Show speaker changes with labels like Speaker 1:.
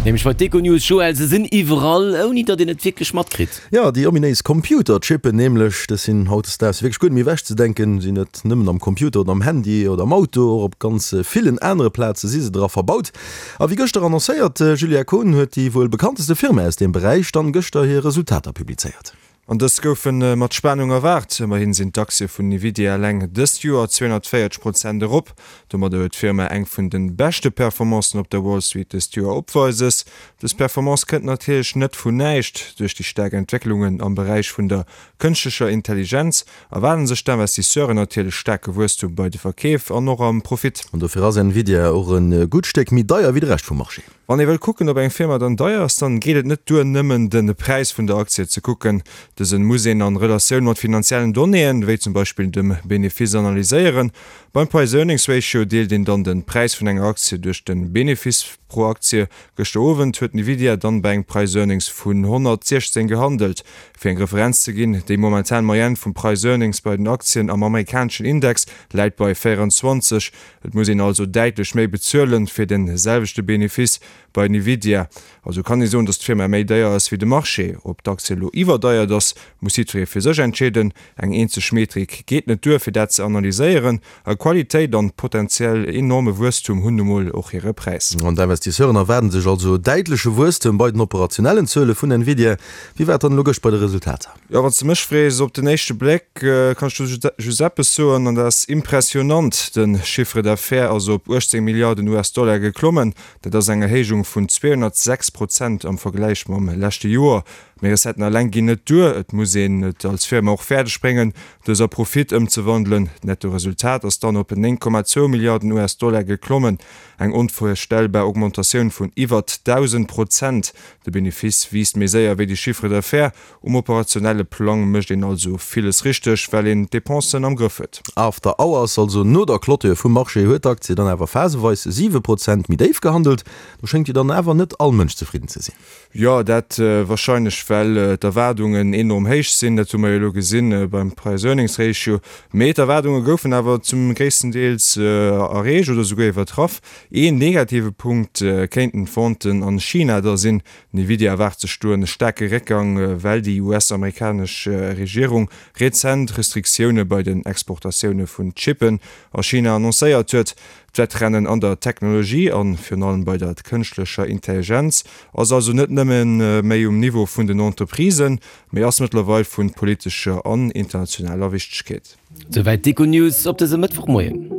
Speaker 1: Nämlech bei d'Econews, Joël, se sinn iwwerall, ouni datt een et wierklech matkritt.
Speaker 2: Jo, déi ominéis Computerchippen nämlech, dës sinn hautdesdaags wierklech guer net méi ewechzedenken. Sinn net nëmmen am Computer oder am Handy oder am Auto, och op ganz villen anere Plaze si se dra verbaut. A wéi gëschter annoncéiert, Julia Kohn, huet déi wuel bekannteste Firma aus deem Beräich dann gëschter hir Resultater publizéiert.
Speaker 3: An dës goufe mat Spanung erwaart. Ëmmerhin sinn d'Aktie vun Nvidia eleng dëst Joer 240 Prozent erop. Domadder huet d'Firma eng vun de beschte Performancen op der Wall Street dëst Joer opweises. Dës Performance kënnt natierlech net vun näischt. Duerch déi staark Entwécklungen am Beräich vun der kënschtlecher Intelligenz erwaarden sech d'Investisseuren natierlech staarke Wuesstum bei de Verkeef an och am Profit.
Speaker 2: An dofir ass Nvidia och e gutt Stéck méi deier wéi de Rescht vum Marché.
Speaker 3: Wann ee wëll kucken ob eng Firma dann deier ass, dann geet et net duer nëmmen den Präis vun der Aktie ze kucken. Dësen muss een an Relatioun mat finanziellen Donnéeën, wéi zum Beispill dem Benefice analyséieren. Beim Price Earnings Ratio deelt een dann den Präis vun enger Aktie duerch den Benefice pro Aktie. Gëschter Owend huet Nvidia dann bei engem Price Earnings vun 116 gehandelt. Fir eng Referenz ze ginn, déi momentan Moyenne vum Price Earnings bei den Aktien am amerikaneschen Index läit bei 24. Et muss een also däitlech méi bezuelen fir den selwechte Benefice bei Nvidia. Also kann ee soen, dass d'Firma méi deier ass wéi de Marché. Ob d'Aktie elo iwwerdeiert ass, muss jiddweree fir sech entscheeden. Eng eenzeg Metrik geet net duer fir dat ze analyséieren. A Qualitéit an potenziell enorme Wuesstum hunn nu mol och hire Präis.
Speaker 2: An d'Investisseuren erwaarden sech also däitleche Wuesstem bei den operationellen Zuele vun Nvidia. Wéi war et dann elo gëscht bei de Resultater?
Speaker 3: Jo, wann s de mech frees, op den éischte Bléck kann ech do just eppes soen, an dat ass impressionnant, De Chiffre d'affaires ass op 18 Milliarden US-Dollar geklommen. Dat ass eng Erhéijung vun 206 Prozent am Vergläich mam leschte Joer. Mee Recetten eleng ginn net duer, et muss een et als Firma och fäerdeg bréngen, dës a Profit ëmzewandelen. D'Nettoresultat ass dann op 9,2 Milliarden US-Dollar geklommen, eng onvirstellbar Augmentatioun vun iwwert 1.000 Prozent. De Benefice wiisst méi séier wéi de Chiffre d'affaires. Um operationelle Plang mécht een also villes richteg, well een d'Depensen am Grëff huet.
Speaker 2: After Hours, also no der Clôture vum Marché, huet d'Aktie dann awer phaseweis 7 Prozent méi déif gehandelt. Do schéngt jo dann awer net all Mënsch zefridden ze sinn.
Speaker 3: Jo, dat warscheinlech well d'Erwaardungen enorm héich sinn. Dat hu mer jo elo gesinn beim Price-Earnings-Ratio. Mee d'Erwaardunge goufen awer zum gréissten Deels erreecht oder souguer iwwertraff. Een negative Punkt kéinten d'Venten an China da sinn. Nvidia erwaart sech do en staarke Réckgang, well déi US-amerikanesch Regierung rezent Restriktioune bei den Exportatioune vun Chippen a China annoncéiert huet. D'Wettrennen an der Technologie a virun allem bei der kënschtlecher Intelligenz ass also net nëmme méi um Niveau vun den Entreprisen, mee ass mëttlerweil vu politescher an internationaler Wichtegkeet.
Speaker 1: Souwäit d'Econews op dësem Mëttwochmoien.